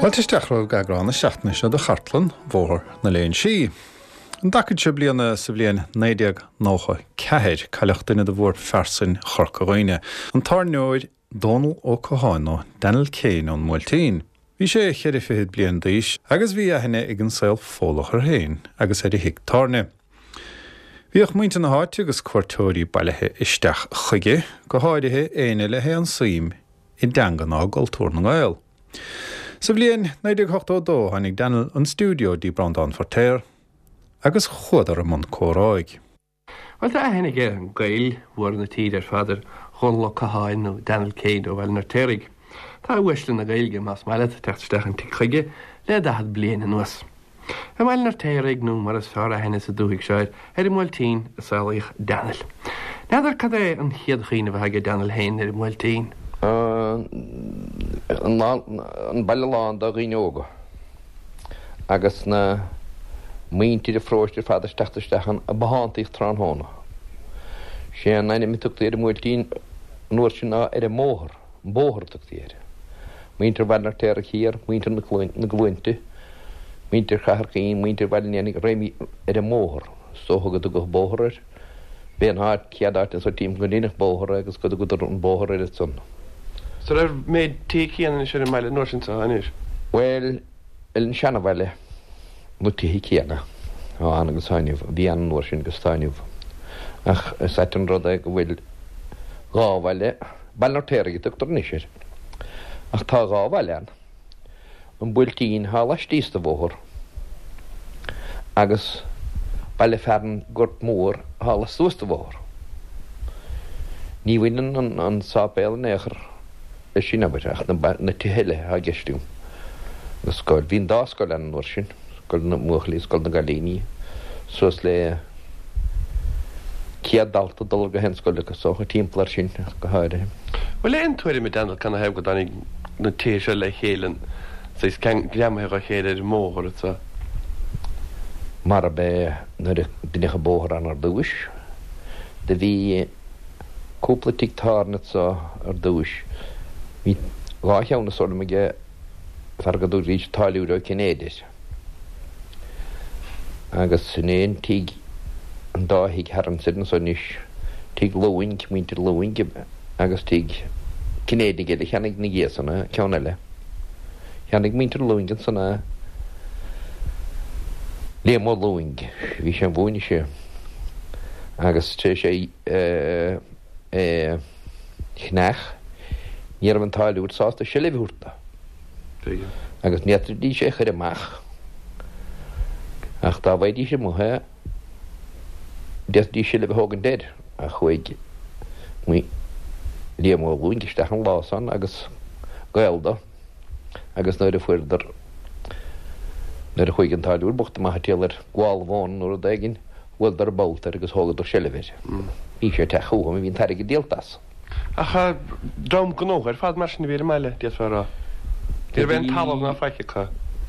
Fáilte isteach romhaibh go eagrán na seachtaine seo de Chartlann Bhóthar na Léinsí. An dtacaid seo bliana sa bhliain 1994, cailleadh duine de mhórphearsain Chorca Dhuibhne, an tábhairneoir Dónal Ó Catháin nó Daniel Kane ón mBuailtín. Bhí sé cheithre fichid bliain d'aois agus bhí aithne ag an saol Fódlach air féin agus ar a thigh tábhairne. Bhíodh muintir na háite agus cuairteoirí bailithe isteach chuige, go háirithe éinne le haon suim i dteanga ná i gcultúr na nGael. Sa bhliain 1982 tháinig Daniel 'on stiúideo dtí Breandán Feirtéar agus chuadar i mbun comhráidh. Bhuel, tá aithne ag Gaeil mhóra na tíre ar fad ar Dhónal Ó Catháin nó Daniel Kane ó Bhaile an Fheirtéaraigh. Tá uaisle na Gaeilge, más maith leat, ag teacht isteach an tigh chuige le 40 bliain anuas. I mBaile an Fheirtéaraigh, nó mar is fearr aithne sa dúthaigh seo air, ar an mBuailtín, a saolaíodh Daniel. N'fheadar cad é an chéad chuimhneamh atá aige Daniel féin ar an mBuailtín. An baile lán de dhaoine óga agus na muintir an pharóiste ar fad ag teacht isteach ann ag bothántaíocht tráthnóna. Sé an ainm a tugtaí ar an mBuailtín an uair sin ná ar an mbóthar, an bóthar a tugtaí air. Muintir Bhaile an Fheirtéaraigh thiar, muintir na gCluainte, muintir Chathair Chaoin, muintir Bhaile an Éanaigh, réimí ar an mbóthar. Is dócha go dtugadh bóthar air. B'é an áit, chéad áit anso timpeall go ndeineadh bóthar é agus go dtugadar an bóthar air ansan. Is an raibh méid tithe céanna anois ar an mbaile an uair sin 's atá anois? Bhuel, ar an seanabhaile, na tithe céanna atá ann agus atá inniu, a bhí ann an uair sin agus atá inniu. Ach is ait an rud é go bhfuil dhá bhaile, Baile an Fheirtéaraigh a tugtar anois air, ach tá dhá bhaile ann. an Buailtín thá laistíos de bhóthar agus baile fearainn Gort Mór thá lastuas de bhóthar. Ní bhaineann an sáipéal in aon chor leis sin, abair, ach na tithe eile athá i gceist agam. Na scoil, bhí an dá scoil ann an uair sin, scoil na mbuachaillí, scoil na gcailíní, suas le 100 dalta ag dul ar gach aon scoil acu, is dócha, timpeall air sin ach go háirithe. Bhfuil aon tuairim ag Daniel canathaobh go dtáinig na tithe seo le chéile, an saghas greamaithe dha chéile ar an mbóthar anso? Mar ab é nuair a deineadh an bóthar ann ar dtúis, do bhí cúpla tigh tábhairne anso ar dtúis. Bhí dhá cheann is dóigh liom aige fear go dtugaidís Táilliúir Ó Cinnéide air. Agus sin é an tigh, an dá thigh thar ansin anso anois, tigh Lúing, muintir Lúing agus tigh Cinnéidigh eile a cheannaigh ina dhiaidh san, ceann eile. Cheannaigh muintir Lúing ansan é, Liam Ó Lúing, bhí sé an mhúineadh sé agus tar éis é a cheannach, ní raibh an táilliúir sásta seilbh a thabhairt dó. Agus ní fhéadfaidís é a chur amach ach dá bhfaighidís amuigh é, d'fhéadfaidís seilbh a thógaint air. Ach chuaigh Liam Ó Lúing isteach an lá san agus gaol dó agus nuair a fuaireadar, nuair a chuaigh an táilliúir bocht amach ag triall ar gabháil mhóna nó rud éigin, bhuaileadar bolt air agus thógadar seilbh air. Bhí sé ag teacht chucu, bhí an t-airgead díolta as. Ach dream gnóthach ar fad mar sin a bhí ar an mbaile, d'fhéadfá a rá. Ní raibh aon talamh ná faic acu.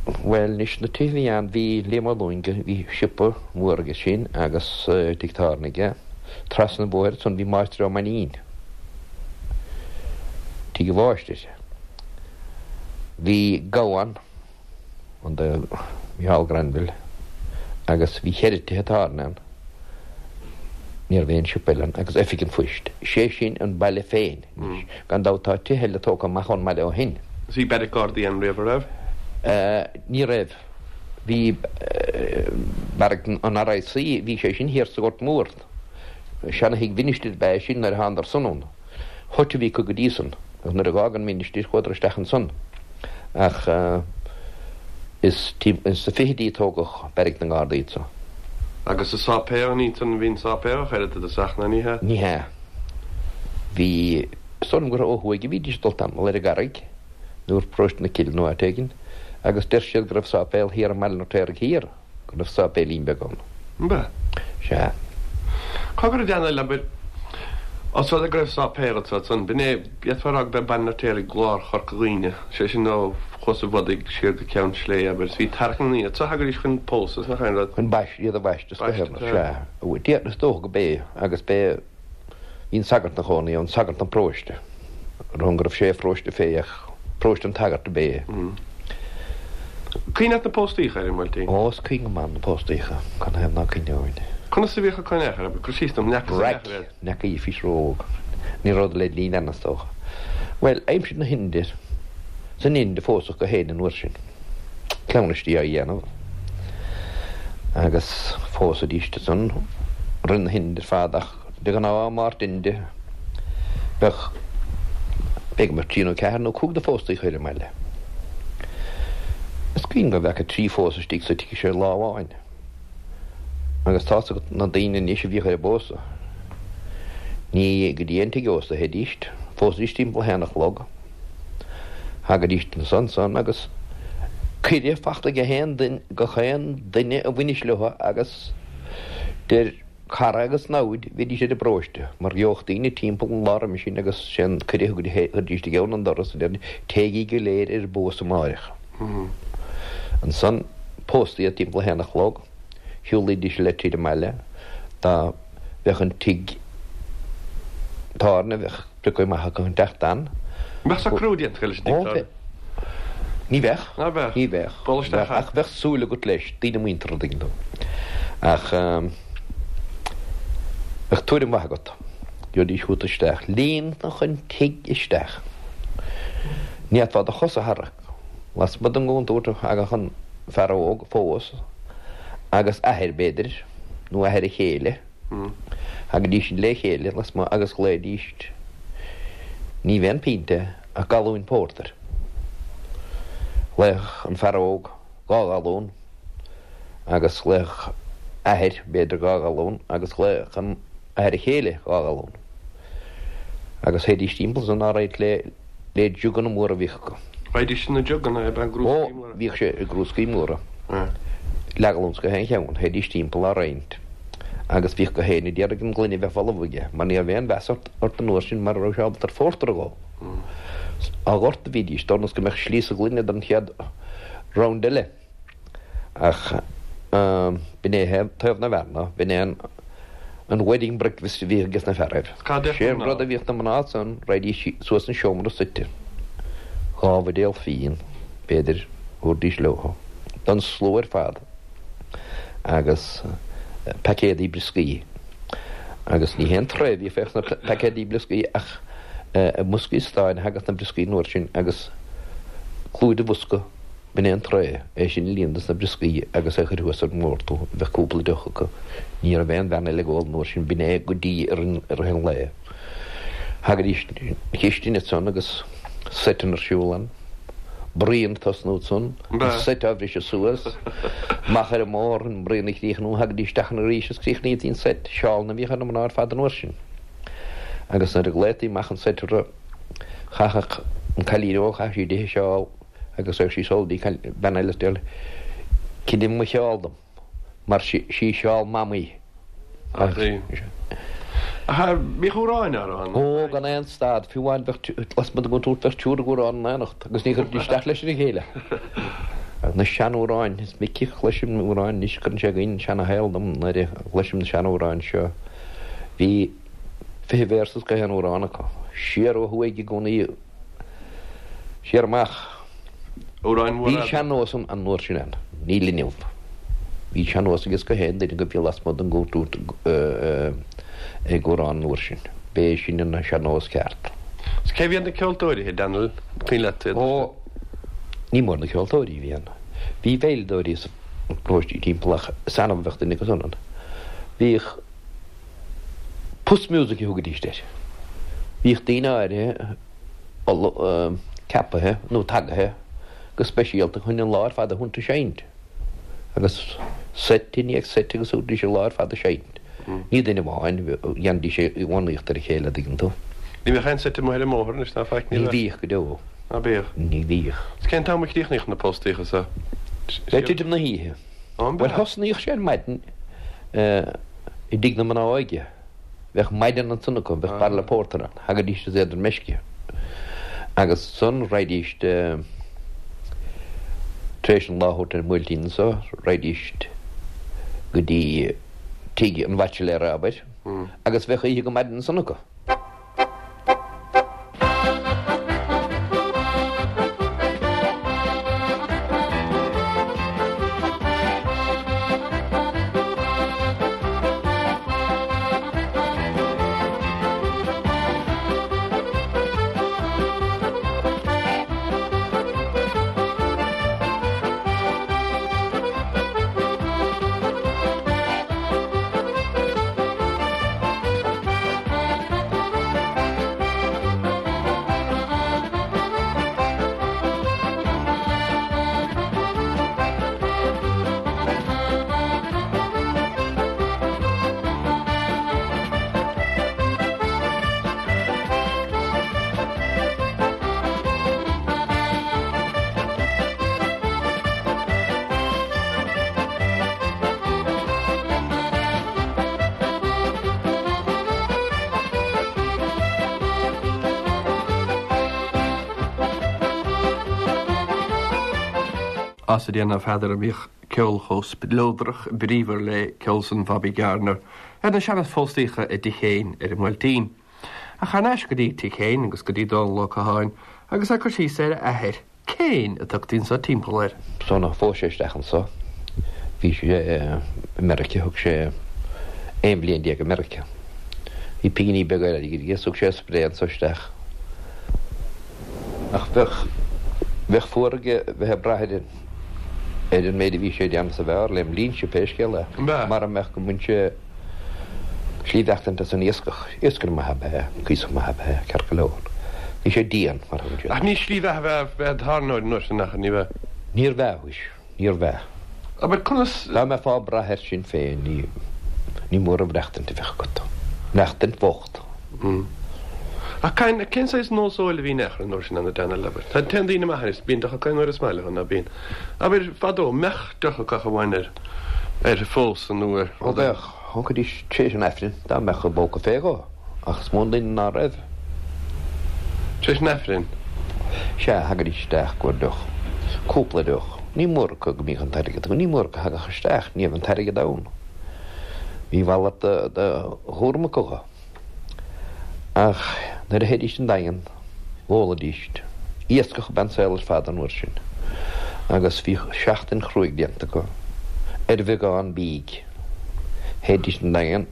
Bhuel, anois, na tithe a bhí ann, bhí Liam Ó Lúing, bhí siopa mór aige sin agus tigh tábhairne aige. Trasna an bhóthair ansan bhí Máistir Ó Mainnín, tigh an mháistir. Bhí gabha ann. an do Mhicheál Granville agus bhí cheithre tithe tábhairne ann. Ní raibh aon siopa eile ann agus oifig an phoist. Sé sin an baile féin anois. Gan dabht tá tithe eile tógtha amach ón mbaile ó shin. Bhí beairic Gardaí ann riamh, an raibh? Ní raibh. Bhí beairic an RIC, bhí sé sin thiar sa Ghort Mór. Seana-thigh mhinistir ab ea é sin nuair a thánadar san ann. Hut a bhí acu go dtí san agus nuair a dh'fhág an ministir chuadar isteach ansan. Ach is sna fichidí a tógadh beairic na nGardaí anso. Agus an sáipéal, ní ansan a bhí an sáipéal ach oiread i dtosach, ná ní hea? Ní hea. Bhí, is dóigh liom gur ó thuaidh a bhídís ag dul tamall ar an gCarraig nó ar Paróiste na Cille nó áit éigin agus deir siad go raibh sáipéal thiar i mBaile an Fheirtéaraigh Thiar. go raibh sáipéilín beag ann. An b'ea? Sea. Cá go raibh Daniel, abair, os rud é go raibh sáipéal anso ansan, b'in é, d'fhéadfá a rá go b'é Baile an Fheirtéaraigh lár Chorca Dhuibhne, sé sin ó Chuas an Bhodaigh siar go Ceann Sléibhe, abair, is bhí tarrac na ndaoine anso, thagaidís chun pósadh, nach aon rud. Chun baist, iad a bhaisteadh, is dócha, sea. Déarfainn, is dócha go b'é, agus b'é, bhí an sagart ina chónaí ann, sagart an pharóiste, ar shon go raibh sé a pharóiste fé ach paróiste an tsagairt ab é. Cuimhin leat na póstaíocha ar an mBuailtín? Ó, is cuimhin go maith na póstaíocha, canathaobh ná cuimhneoinn. Conas a bhíodh ag cur in aon chor, cur síos dom, n'fheacas in aon chor iad. Raic, n'fheaca bhís ró-óg. Ní rabhadar le linn ann, is dócha. Bhuel, aimsir na hInde, san Ind a phósadh gach éinne an uair sin. Cleamhnaistí á dhéanamh agus phósaidís ansan roimh na hInde ar fad ach de ghnáth Máirt Inde bheadh, b'fhéidir go mbeadh trí nó ceathair nó cúig de phóstaíocha ar an mbaile. Is cuimhin go bhfeaca trí phósadh istigh sa tigh seo lá amháin agus tá's agat na daoine anois a bhíodh ar an bpósadh, ní go dtí an tigh ósta a théidís, phósaidís timpeall a haon a chlog. Thagaidís ansan san agus cuireadh fachta ag aon duine, gach aon duine a bhainis leo agus idir cara agus namhaid bhídís ar an bparóiste mar gheobhadh daoine timpeall an lá roimhe sin agus sé an cuireadh a chuiridís i gceann an doras a deiridís téigí go léir ar an bpósadh amáireach. Ansan póstaí iad timpeall a haon a chlog, shiúlaídís le tríd an mbaile dá bheadh an tigh tábhairne bheadh Priocadh maith acu an teacht ann. Mbeadh socrú déanta acu leis an tigh tábhairne? Ní bheadh. Ná beadh? Ní bheadh. Bualadh isteach Ach bheadh súil agat leis, daoine muinteartha, an dtuigeann tú. Ach bheadh tuairim mhaith agat. Gheobhaidís chugat isteach. Líonfadh an tigh isteach. Ní fhéadfá do chos a tharrac. Lasmuigh den gcontúirt a thagadh an fear óg a phós agus athair, b'fhéidir, nó athair a chéile. Thagaidís le chéile lasmuigh agus ghlaoidís, ní b'aon phionta ach galúin pórtair. Ghlaofadh an fear óg dhá ghalún agus ghlaofadh athair, b'fhéidir, dhá ghalún agus ghlaofadh an athair a chéile dhá ghalún. Agus théidís timpeall san á roinnt le le juganna móra a bhíodh acu. Raghaidís sna juganna ab ea gcrúscaí móra? Ó, bhíodh sé i gcrúscaí móra. Leathghalún 's gach aon cheann, théidís timpeall á roinnt agus bhíodh gach éinne d'iarraidh an ghloine a bheith folamh aige mar ní raibh aon mheas ort an uair sin mara raibh sé ábalta ar phórtar a dh'ól. Á dhoirteadh a bhídís, d'fhonn is go mbeadh slí sa ghloine don chéad round eile. Ach b'in é taobh na bhfear ná b'in é an wedding breakfast a bhíodh ages na fearaibh. Sé an rud a bhíodh na mná ansan, raghaidís suas an seomra suite, dhá bhuidéal fíon, b'fhéidir, thabharfaidís leo, don slua ar fad agus paicéadaí brioscaí. Agus ní haon tray a bhíodh fé sna paicéadaí brioscaí ach i mboscaí stáin a thagadh na brioscaí an uair sin agus clúid an bhosca B'in é an tray, é sin a líonadh dos na brioscaí agus é a chur thuas ar an mbord. Bheadh cúpla deoch acu. Ní raibh aon bhean eile ag ól an uair sin, b'in é go dtí i rith an lae. Thagaidís 'na chistin ansan agus seiteanna ar siúl ann. Braon ag tosnú ansan, an seit á bhriseadh suas, amach ar an mbóthar, an braon a chríochnú, thagaidís isteach ann arís is chríochnaítí an seit. Seálanna a bhíodh ar na mná ar fad an uair sin. Agus nuair a ghlaotaí amach an seit orthu, chaithfeadh an cailín óg, chaithfeadh sí dithe seál, agus raghadh sí sall dtí bean eile is déarfadh léi, Cinn mo sheál dom, mar sí seál Mamaí. Ach bhíodh amhráin á rá ann. Ó, gan aon stad, fiú amháin bheadh, lasmuigh den gcontúirt bheadh triúr ag amhrán in éineacht agus ní chuirfidís isteach leis ar a chéile. Na seanamhráin, is minic a chloisim amhráin anois, cuireann sé i gcuimhne an seanashaol dom nuair a chloisim na seanamhráin seo. Bhí fiche véarsa as gach aon amhrán acu. Siar ó thuaidh i gcónaí. Siar amach. Amhráin mhóra. Bhí sean-nós an an uair sin ann. Níl inniu. Bhí sean-nós ages gach aon duine go bhí lasmuigh den gcontúirt ag amhrán an uair sin. B'é sin an sean-nós ceart. Is cé bhí iad na ceoltóirí, a Daniel? An cuimhin leat iad? Ó, ní mór na ceoltóirí a bhí ann. Bhí veidhleadóirí sna paróistí timpeall ach is annamh a bheadh duine acu san ann. Bhíodh. Puss music a thugaidís air. Bhíodh daoine áirithe ceapaithe nó tagaithe go speisialta chun an lá ar fad a thabhairt ag seinnt. Agus seit i ndiaidh seit agus thabharfaidís an lá ar fad ag seinnt. Ní duine amháin, dhéanaidís é i bhfánaíocht ar a chéile, an dtuigeann tú. Ní bhíodh aon seit amuigh ar an mbóthar anois ná faic, ní bheadh? Ní bhíodh go deo. Ná bíodh? Ní bhíodh. Is cén t-am a chríochnaíodh na póstaíocha so? Le titim na hoíche. Bhuel thosnaíodh sé ar maidin i dtigh na mná óige. Bheadh maidean ansan acu, bheadh bairille pórtair ann, thagaidís is iad ar meisce. Agus ansan raghaidís tar éis an lá a thabhairt ar an mBuailtín anso, raghaidís go dtí tigh an bhaitsiléara, abair, agus bheadh oíche go maidin ansan acu. As a déanamh Pheadair a mbíodh ceol chomh spleodrach bríomhar le ceol san Bhobby Gardiner ar na seana-phóstaíocha i dTigh Chéin ar an mBuailtín. Ach thar n-ais go dtí Tigh Chéin agus go dtí Dónal Ó Catháin agus é ag cur síos ar a athair, Céin a tugtaí anso timpeall air. Sula phós sé isteach anso bhí sé i Meiriceá, thug sé 11 bhliain i Meiriceá. Bhí pinginí beaga airgid aige, thug sé a spré anso isteach. Ach bheadh, bheadh fuar aige bheith ag brath ar an, ar an méid a bhí sé ag déanamh sa bheár lem linnse pé scéal é, mara mbeadh go mbain sé slí bheachtaint as an iascach. Iascaire maith ab ea é, cuíosach maith ab ea é, ceart go leor. Bhí sé dian, mar a thugann siad. Ach ní slí bheatha ab ea bheith id thábhairneoir an uair sin, ach ní bheadh. Níorbh ea, mhuis, níorbh ea. Abair, conas. Dá mbeifeá ag brath air sin féin, ní, ní mór an mhaireachtaint a bheadh agat. Maireachtaint bhocht. Ach cén, cén saghas nós óil a bhí in aon chor an uair sin ann, a Daniel, abair? Tá, téann daoine amach anois, bíonn deoch acu aon uair is maith leo, ná bíonn? Abair, fadó, mbeadh deoch acu ach amháin ar, ar phósadh nó ar. Ó bheadh, thógfaidís tar éis an Aifrinn, dá mbeadh a bpóca fé dhó, ach is mó an duine ná raibh. Tar éis an Aifrinn? Sea, thagaidís isteach i gcomhair deoch, cúpla deoch. Ní mór acu go mbíodh an t-airgead acu, ní mór acu a thagadh isteach, ní raibh an t-airgead ann. Bhí a mhalairt de chúram acu dho. Ach nuair a théidís 'on Daingean, dh'ólaidís. Iascach ab ea an saol ar fad an uair sin, agus bhíodh seachtain chruaidh déanta acu ar bheagán bídh. Théidís 'on Daingean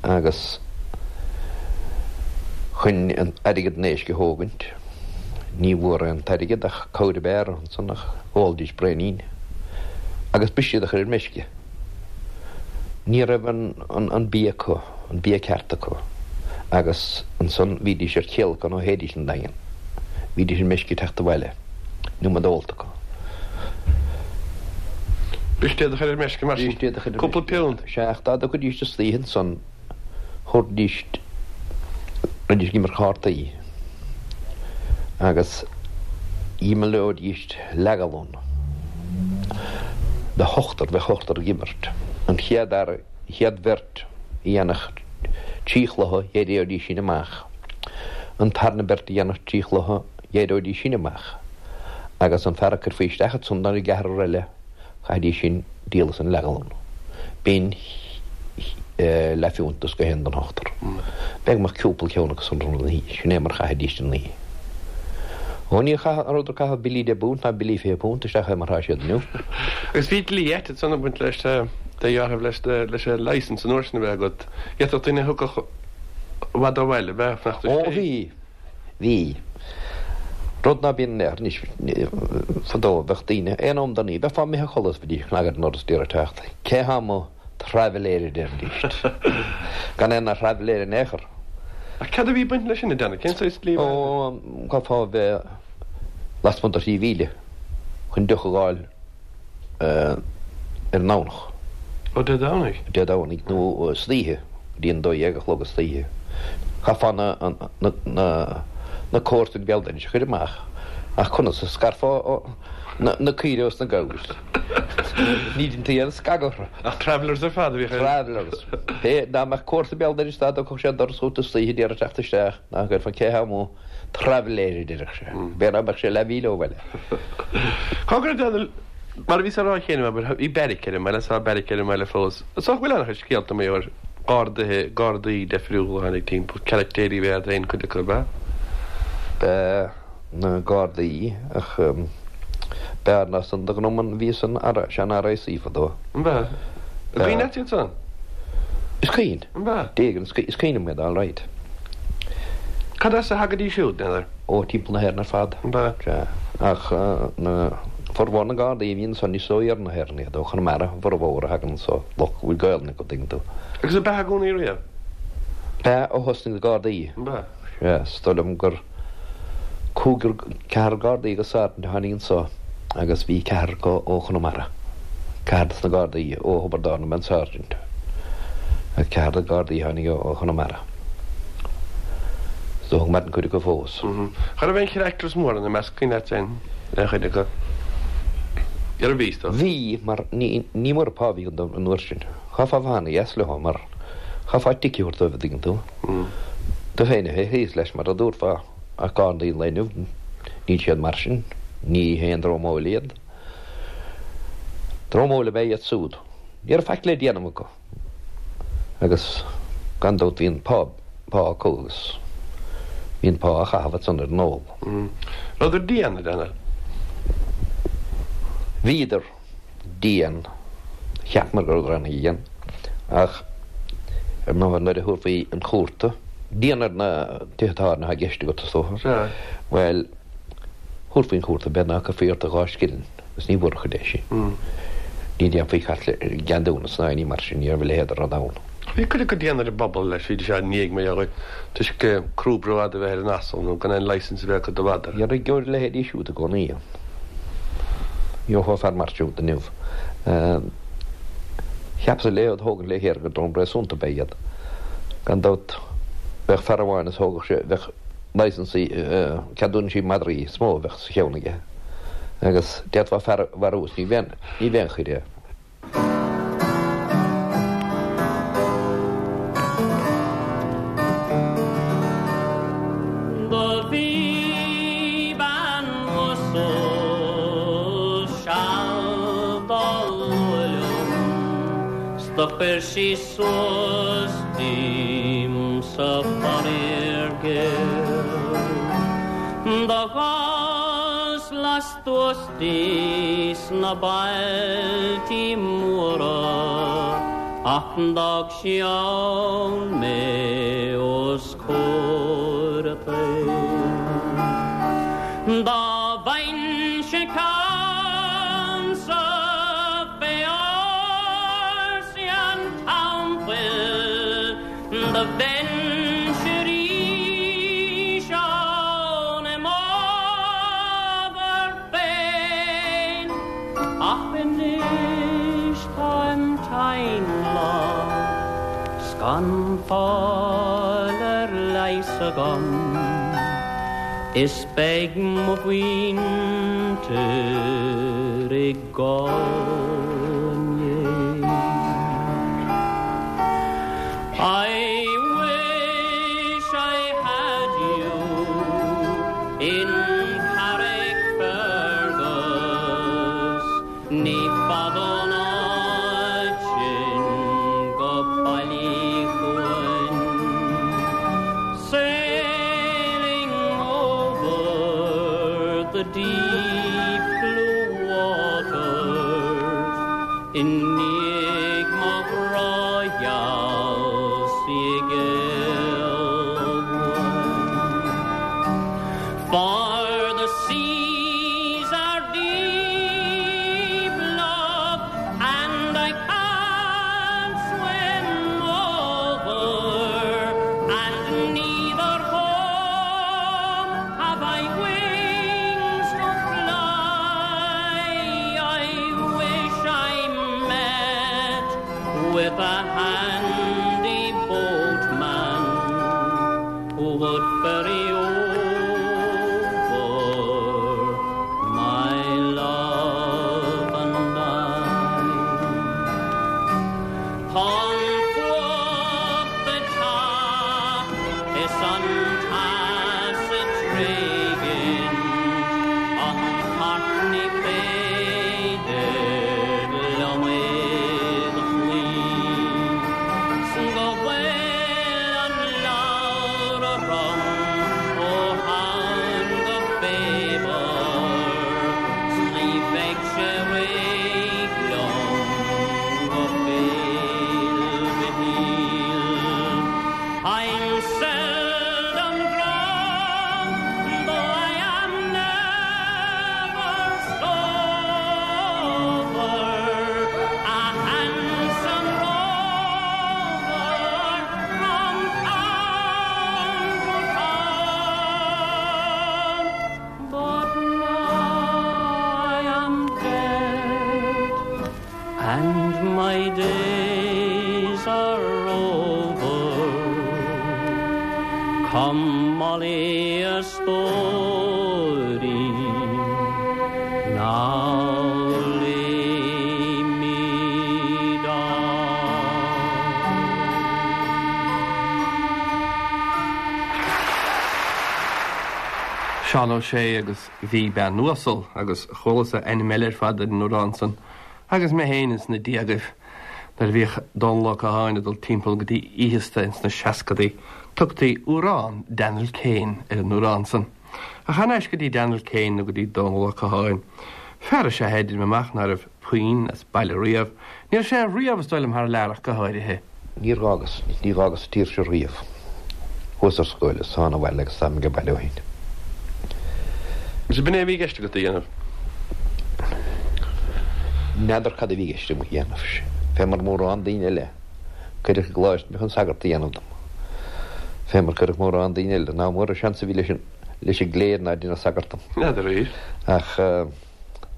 agus chun airgead an éisc a thógaint, ní mhór an t-airgead ach cabhair ab fhearr ansan ach dh'ólaidís braoinín agus b'shin iad a chur ar meisce. Ní raibh an bia acu, an bia ceart acu, agus ansan bhídís ar céalacan ó théidís 'on Daingean. Bhídís ar meisce teacht abhaile, an iomad ólta acu. B'shin iad a chur ar meisce mar sin, cúpla piúnt. Sea, ach dá dtiocfaidís istoíche ansan, thabharfaidís, raghaidís ag imirt cártaí agus dh'imreoidís leathghallún de hochtar, bheadh ochtar ag imirt. An chéad fhear, an chéad bheirt a dhéanfadh trí chluiche, d'éireoidís sin amach. An tarna beirt a dhéanfadh trí chluiche, d'éireoidís sin amach. Agus an fear a cuirfí isteach ansan don gceathrar eile, Chaithfidís sin díol as an leathghallún. B'in leathphiúnt is gach aon den ochtar. B'fhéidir go mbeadh cúpla ceann acu san an oíche. Sin é mar chaithidís an oíche. Ó ní rabhadar ag caitheamh billí deich bpunt ná billí 20 punt isteach é mar tá siad inniu. Agus bhí dlí ait ansan ag baint leis de dheartháir leis leis an licence an uair sin a bheith agat. D'fhéadfadh duine a thiocfadh i bhfad ó bhaile a bheith fanacht Ó bhí. Bhí. Rud ná bíonn in aon chor anois. Fadó bheadh daoine, aon am den oíche, bheifeá imithe a chodladh is bheidís ag cnagadh ar an ndoras d'iarraidh teacht. Cé thá amuigh? Traibhléir a deiridís. Gan aon thraibhléir in aon chor. Ach cad a bhí ag baint leis sin, a Danny? Cén saghas dlí a bhí ann? Ó, chaithfeá a bheith lasmuigh de thrí mhíle chun deoch a dh'fháil. ar an nDomhnach. Ó Dé Domhnaigh? Dé Domhnaigh nó istoíche, go dtí an 12 a chlog istoíche. Chaithfeá na comharsain béal dorais a chur amach, ach conas a scarfá na caoirigh ós na gabhair? Ní deinti aon scagadh orthu. Ach travellers ar fad a bhíodh ar. Travellers. Pé, dá mbeadh comharsa béal dorais dá dtógfadh sé an doras chút istoíche d'iarraidh teacht isteach, ná cuirfeá cé thá amuigh. Traibhléir a déarfadh sé. B'fhéidir dá mbeadh sé leathmhíle ó bhaile. Cá go raibh Daniel, mar a bhíos á rá cheana, abair, bhí beairic ar an mbaile, tá beairic ar an mbaile fós. Is dócha go bhfuil an-chuid scéalta mar gheall ar ghardaithe, gardaí deifriúla a tháinig timpeall, caractéirí ab ea iad féin, cuid acu, ab ea? B'ea, na gardaí, ach b'fhearr ná san do ghnó an bhí san sean RIC fadó. An b'ea? An cuimhin leat iad san? Is cuimhin. An b'ea? D'éigin, is cuimhin liom iad alright. Cad as a thagaidís siúd, n'fheadar? Ó, timpeall na hÉireann ar fad. An b'ea? Sea. Ach na, formhór na nGardaí a bhí ansan is ó iarthar na hÉireann iad, ó Chonamara a bhformhór a thagann anso, lucht go bhfuil Gaelainn acu, tuigeann tú. Agus ab ea i gcónaí riamh? B'ea, ó thosnaigh na Gardaí. An b'ea? Sea, is dóigh liom gur cúigear, ceathrar Gardaí agus sáirsint a tháinig anso agus bhí ceathrar acu ó Chonamara, ceathrar dos na Gardaí ó Thiobraid Árann ab ea an sáirsint agus ceathrar de Ghardaí a tháinig ó Chonamara. Is dócha go maireann cuid acu fós. Cha raibh aon characters móra ina measc, cuimhin leat aon chuid acu? Ar bhí, is dócha? Bhí, mar ní mór an pá a bhí an uair sin. Chaithfeá bheith ana-dheas leo mar chaithfeá tic a thabhairt dóibh, an dtuigeann tú. Tú féin a bheith thíos leis mar a dúrfá, ach Gardaí an lae inniu, níl siad mar sin, ní haon dream óil iad. Dream óil ab ea iad súd. Ní raibh faic le déanamh acu agus gan dabht bhí an pá pá acu agus bhí an pá á chaitheamh ansan ar an ól. Rabhadar dian, a Daniel? Bhíodar dian. Cheapamar go rabhadar ana-dhian ach ar ndóigh nuair a thabharfaí chun cúirte, dian ar na tithe tábhairne atá i gceist agat is dócha. Sea. Bhuel, thabharfaí chun cúirte b'fhéidir ná cuirfí ort ach 2 scilling agus ní bhfuair chuid é sin. Ní dhéanfaí cat le ceadúnas ná éinní mar sin, ní raibh a leithéid de rud ann. Bhí cuid acu dian ar an bpobal leis, bhídís á n-éag mar dhea toisc crúb rófhada a bheith ar an asal nó gan aon licence a bheith acu do mhadra. Gheobhaidh a leithéidí siúd i gcónaí ann. Gheofá fear mar siúd inniu. Cheapas le iad thógaint le chéile gur dream réasúnta ab ea iad. Gan dabht bheadh fear amháin is thógadh sé, bheadh licensaí, ceadúnaisí madraí is mó a bheadh sa cheann aige agus d'fhéadfá fear a mharú is ní bheadh aon choir air. Do bhí bean uasal seal dá lua liom 's do chuir sí suas díom-sa faraor géar. Do ghabhas lastuas di sna bailtí móra ach d'fhág sí ann mé os comhair an tsaoil. Dá bhfaighinnse ceannsa fé ársaí an teampaill do bheinnse arís ann i m'ábhar féin. Ach anois táim tinn lag 's gan fáil ar leigheas agam is beidh mo mhuintir ag gol im dhiaidh. I wish I had you in Carrickfergus Ní fada ón áit sin go Baile Chuain Sailing over the deep blue waters I ndiaidh mo ghrá gheal 's í géillbhuain For the seas are deep, love, and I can't swim over, and neither home have I wings to fly. I wish I met with a handy boatman who would ferry over my love and I. Tá an fuacht ag teacht is an teas ag tréigint an tart ní féidir liom é do chloí 's go bhfuil an leabhar orm ó Shamhain go Faobhar 's ní bheidh sé réidh liom go Féil' Mhichíl. I'm seldom drunk, though I am never sober, a handsome rover from town to town. But now I am dead, and my days are over. Come, Molly, a stóirín, now lay me down. Seán Ó Sé agus Bhí Bean Uasal agus chualas-sa ainm eile ar fad ar an amhrán san. Agus mé féin ins na déagaibh, nuair a bhíodh Dónal Ó Catháin ag dul timpeall go dtí oícheasta ins na seascadaí, tugtaí Uarán Daniel Kane ar an uarán san. Ach thar n-ais go dtí Daniel Kane nó go dtí Dónal Ó Catháin. Fear is ea é, deirim amach, ná raibh puinn as baile riamh. Ní raibh sé riamh, is dóigh liom, thar lear ach go háirithe. Níor dh'fhágas, ní dh'fhágas an tír seo riamh. Chuas ar scoil is thána abhaile agus táim age baile ó shin. Agus b'in é a bhí i gceist agat a dhéanamh? N'fheadar cad a bhí i gceist agam a dhéanamh. Fé mar mórán daoine eile, cuireadh i gcoláiste mé chun sagart a dhéanamh dom. Fé mar cuireadh mórán daoine eile, ná mór an seans a bhí leis an, leis an gcléir ná déanamh sagart dom. N'fheadar arís. Ach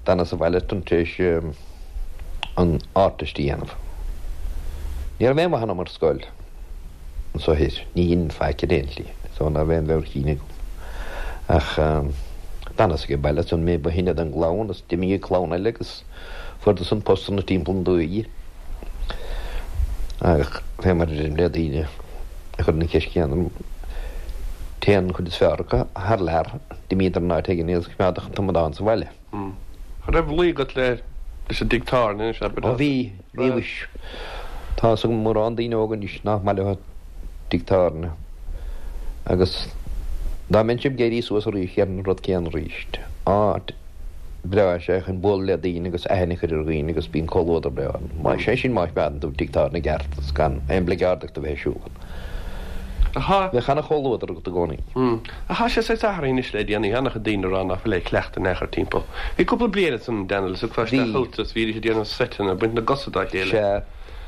d'fhanas sa bhaile tar éis an Ardteist a dhéanamh. Ní raibh aon mhaith ionam ar scoil anso thoir. Ní dhein faic ar aon tslí, so ná raibh aon mheabhair chinn agam. Ach d'fhanas age baile ansan mé ba shine den gclann agus d'imigh an clann eile agus fuaireadar-san postanna timpeall na dúiche. Ach fé mar a deirim le daoine a chuireann an cheist chéanna orm, téann an chuid is fearr acu thar lear, d'imíodar in áit éigin iad a choimeádadh an t-amadán sa bhaile. An raibh luí agat le leis an dtigh tábhairne anois, abair? Ó bhí, bhí mhuis. Tá fhios agam mórán daoine óga anois nach maith leo tigh tábhairne agus dá mbeinnse ag éirí suas arís dhéarfainn an rud céanna arís. Áit bhreá is ea é chun bualadh le daoine agus aithne a chur ar dhaoine agus bíonn comhluadar breá ann. Sé sin má choimeádann tú tigh tábhairne i gceart agus gan aon oibleagáid agat a bheith ar siúl ann. Bheadh ana-chomhluadar agat i gcónaí. Ach tá sé saghas athraithe anois le déanaí. Tá an-chuid daoine ag rá ná fuil aon chleachtadh in aon chor timpeall. Bhí cúpla bliain ansan, Daniel, is thiocfá isteach chugat is bhídís ag déanamh seiteanna, ag baint na gcosa dá chéile. Sea.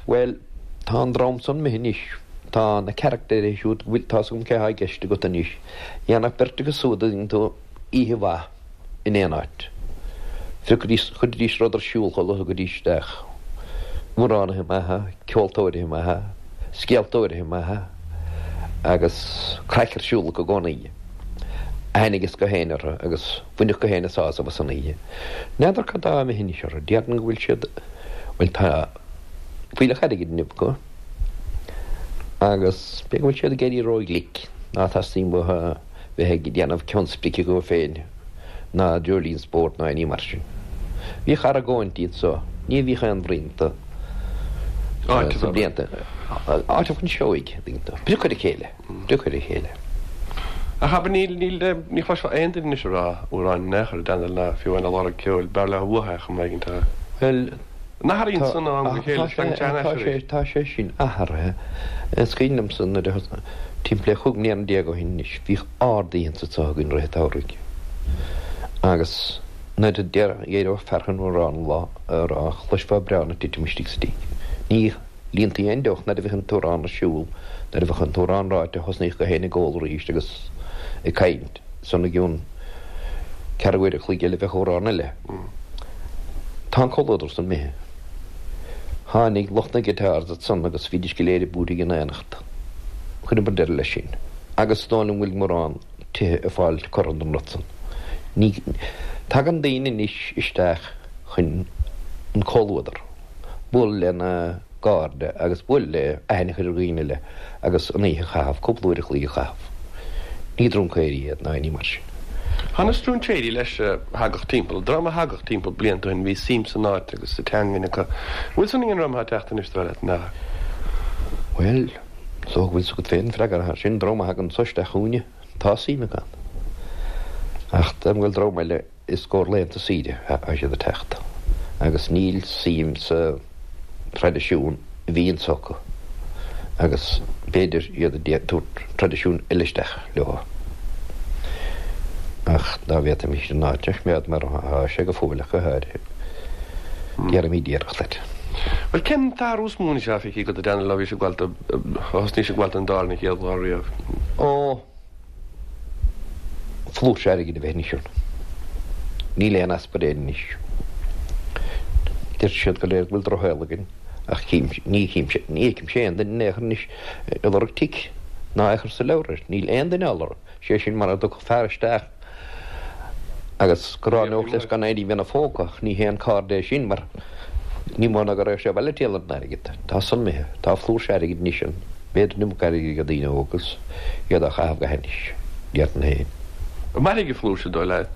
Bhuel, tá an dream san imithe anois. Tá na caractéirí siúd, bhfuil, tá's agam cé thá i gceist agat anois. Dhéanfadh beirt acu siúd a dtuigeann tú oíche mhaith in aon áit. Phiocaidís, chuiridís rud ar siúl chomh luath a thiocfaidís isteach. Amhránaithe maithe, ceoltóirithe maithe, scéaltóirithe maithe agus craic ar siúl acu i gcónaí. Aithne ages gach éinne orthu agus bhainfeadh gach éinne sásamh as an oíche. N'fheadar cad tá imithe anois orthu, déarfainn go bhfuil siad, bhuel tá fuílleach airgid inniu acu agus b'fhéidir go bhfuil siad ag éirí ró-ghlic, ná teastaíonn uathu bheith ag déanamh ceann sprice dhóibh féin ná dreoilín spóirt ná aon ní mar sin. Bhíodh argóintí anso, ní bhíodh aon bhrí iontu sna blianta, áiteamh chun seoigh, an dtuigeann tú, priocadh ar a chéile, priocadh ar a chéile. Ach abair, níl, níl, ní chloisfeá aon duine anois ag rá amhráin in aon chor, Daniel, ná fiú amháin ag lorg ceoil, b'fhearr leo uathu é chomh maith, tá. Bhuel, An athraíonn san ó am go chéile, is tagann sé thar n-ais arís. Tá sé sin athraithe. Is cuimhin liomsa nuair a, timpeall le 15 mbliana ó shin anois, bhíodh ard-oícheanta anso againn i rith an tsamhraidh. Agus nuair a d'éireodh fear chun amhrán a rá, chloisfeá braon ag titim istigh sa tigh. Ní líontaí aon deoch nuair a bhíodh an t-amhrán ar siúl. Nuair a bheadh an t-amhrán ráite, thosnaíodh gach éinne ag ól arís agus ag caint. Ansan i gcionn ceathrú uair a chloig eile bheadh amhrán eile. Tá an comhluadar san imithe. Tháinig lucht na guitars ansan agus bhídís go léir ag búirthigh in aonacht. Chuireamar deireadh leis sin. Agus is dóigh liom go bhfuil mórán tithe ag fáil cortha den rud san. Ní tagann daoine anois isteach chun an comhluadar, bualadh lena gcairde agus bualadh le aithne a chur ar dhaoine eile agus an oíche a chaitheamh, cúpla uair a chloig a chaitheamh. Ní druncaeirí iad ná aon ní mar sin. Tá na stróinséirí leis a thagadh timpeall, dream a thagadh timpeall blianta ó shin, bhí suim san áit agus sa teangain acu. An bhfuil san ag an ndream atá ag teacht anois, dar leat, nach? Bhuel, is dócha go bhfuil 's agat féin an freagra air sin, dream a thagann anso isteach chugainne, tá suim acu ann. Ach dá bhfuil dream eile I gcomhair laethanta saoire atá siad ag teacht agus níl suim sa traidisiún a bhí anso acu agus b'fhéidir iad ag tabhairt traidisiún eile isteach leo. Ach dá bhféadfaimis an áit a choimeád mar atá sé go fóill ach go háirithe, déarfaimid iarracht air. Bhuel, cén t-athrú is mó anois atá feicthe agat a Daniel ó bhís ag gabháil, ó thosnaís ag gabháil don dtábhairne an chéad lá riamh? Ó. Flúirse airgid a bheith anois ann. Níl aon easpa ar Éirinn anois. Deir siad go léir go bhfuil drochshaol againn, ach ní chímse, ní fheicimse aon duine in aon chor anois ag lorg tic ná é a chur sa leabhar air. Níl aon duine á lorg. Sé sin mara dtiocfadh fear isteach agus go ráineodh leis gan aon ní bheith ina phóca, ach ní haon caird é sin mar ní mó ná go raibh sé abhaile ag triall ar an airgead. Tá san imithe. Tá flúirse airgid anois ann. B'fhéidir an iomarca airgid ag daoine óga agus iad á chaitheamh go hainnis, déarfainn féin. An mairfidh an flúirse, dóigh leat?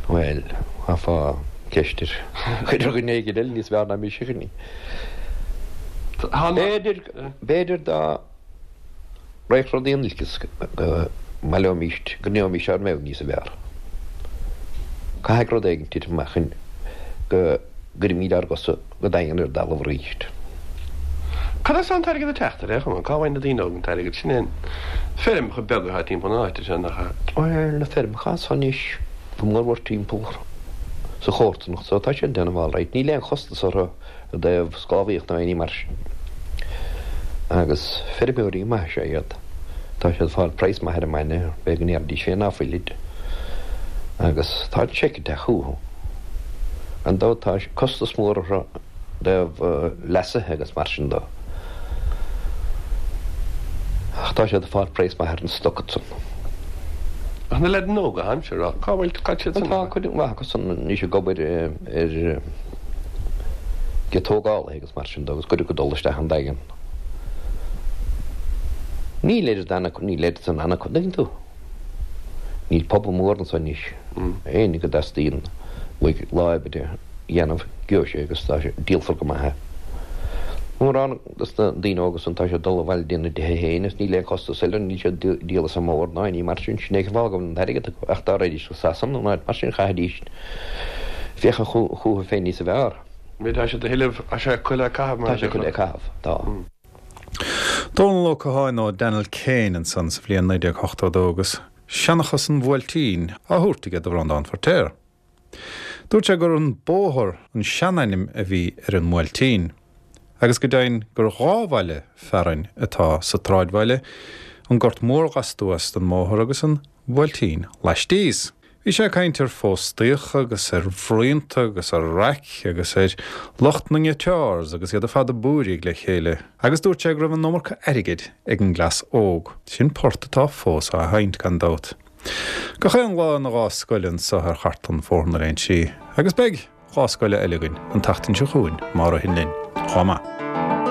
Bhuel, chaithfeá. Ceist ar chuir ar dhuine éigin eile níos fearr ná mise chuir ní. B'fhéidir, b'fhéidir dá raghadh rudaí in olcas go mbaileoimíst, go ndéanfaimíst ár mbealach níos fearr. Caithfidh rud éigin titim amach chun go gcuirfimíd ár gcosa go daingean ar an dtalamh arís. Cad as an t-airgead ag teacht ar aon chuma? Cá bhfaigheann na daoine óga an t-airgead? Sin é an feirmeacha beaga atá timpeall na háite seo, nach ea? Bhuel, na feirmeacha anso anois, go mórmhór timpeall sa chomharsanacht so, tá siad ag déanamh alright. Níl aon chostas orthu i dtaobh sclábhaíocht ná aon ní mar sin. Agus feirmeoirí maithe is ea iad. Tá siad ag fáil praghas maith ar an mbainne, b'fhéidir go ndéarfaidís féin ná fuilid. Agus tá an seic ag teacht chucu. Gan dabht tá costas mór orthu i dtaobh leasaithe agus mar sin de. Ach tá siad ag fáil praghas maith ar an stoc ansan. Ach na leaideanna óga, táimse a rá, cá bhfuil, cad siad san? Tá cuid mhaith acu san anois ag obair ar ag tógálaithe agus mar sin de agus cuid acu ag dul isteach an Daingean. Níl oiread ann acu, níl oiread san ann acu, an dtuigeann tú? Níl pobal mór anso anois. Éinne go dteastaíonn uaidh lá oibre a dhéanamh, gheobhaidh sé agus tá sé, díolfar go maith é. Mórán dos na daoine óga san tá siad ag dul abhaile dtína dtithe féin agus níl aon chostas eile, níl siad ag díol as an mbóthar ná aon ní mar sin, sin é an fáth go bhfuil an t-airgead acu. Ach dá raghaidís go Sasana nó áit mar sin chaithfidís féachaint chúthu féin níosa bhfearr. Tá siad a thuilleamh, tá sé acu le caitheamh mar a déarfá. Tá sé acu le caitheamh, tá. Dónal Ó Catháin nó Daniel Kane ansan sa bhliain 1982 agus Seanchas an Bhuailtín á thabhairt aige do Bhreandán Feiritéar. Dúirt sé gur An Bóthar an seanainm a bhí ar an mBuailtín agus go deimhin gur dhá bhaile fearainn atá sa tsráidbhaile, an Gort Mór lastuas den mbóthar agus an Buailtín laistíos. Bhí sé ag caint ar phóstaíocha agus ar bhruíonta agus ar raic agus ar lucht na nGuitars agus iad ar fad ag búirígh le chéile agus dúirt sé go raibh an iomarca airgid ag an gcleas óg. Sin port atá fós á sheinnt, gan dabht. Gach aon lá ina lá scoile anso ar chartlann Bhóthar na Léinsí agus beidh lá scoile eile againn an tseachtain seo chugainn má ritheann linn. Lá maith.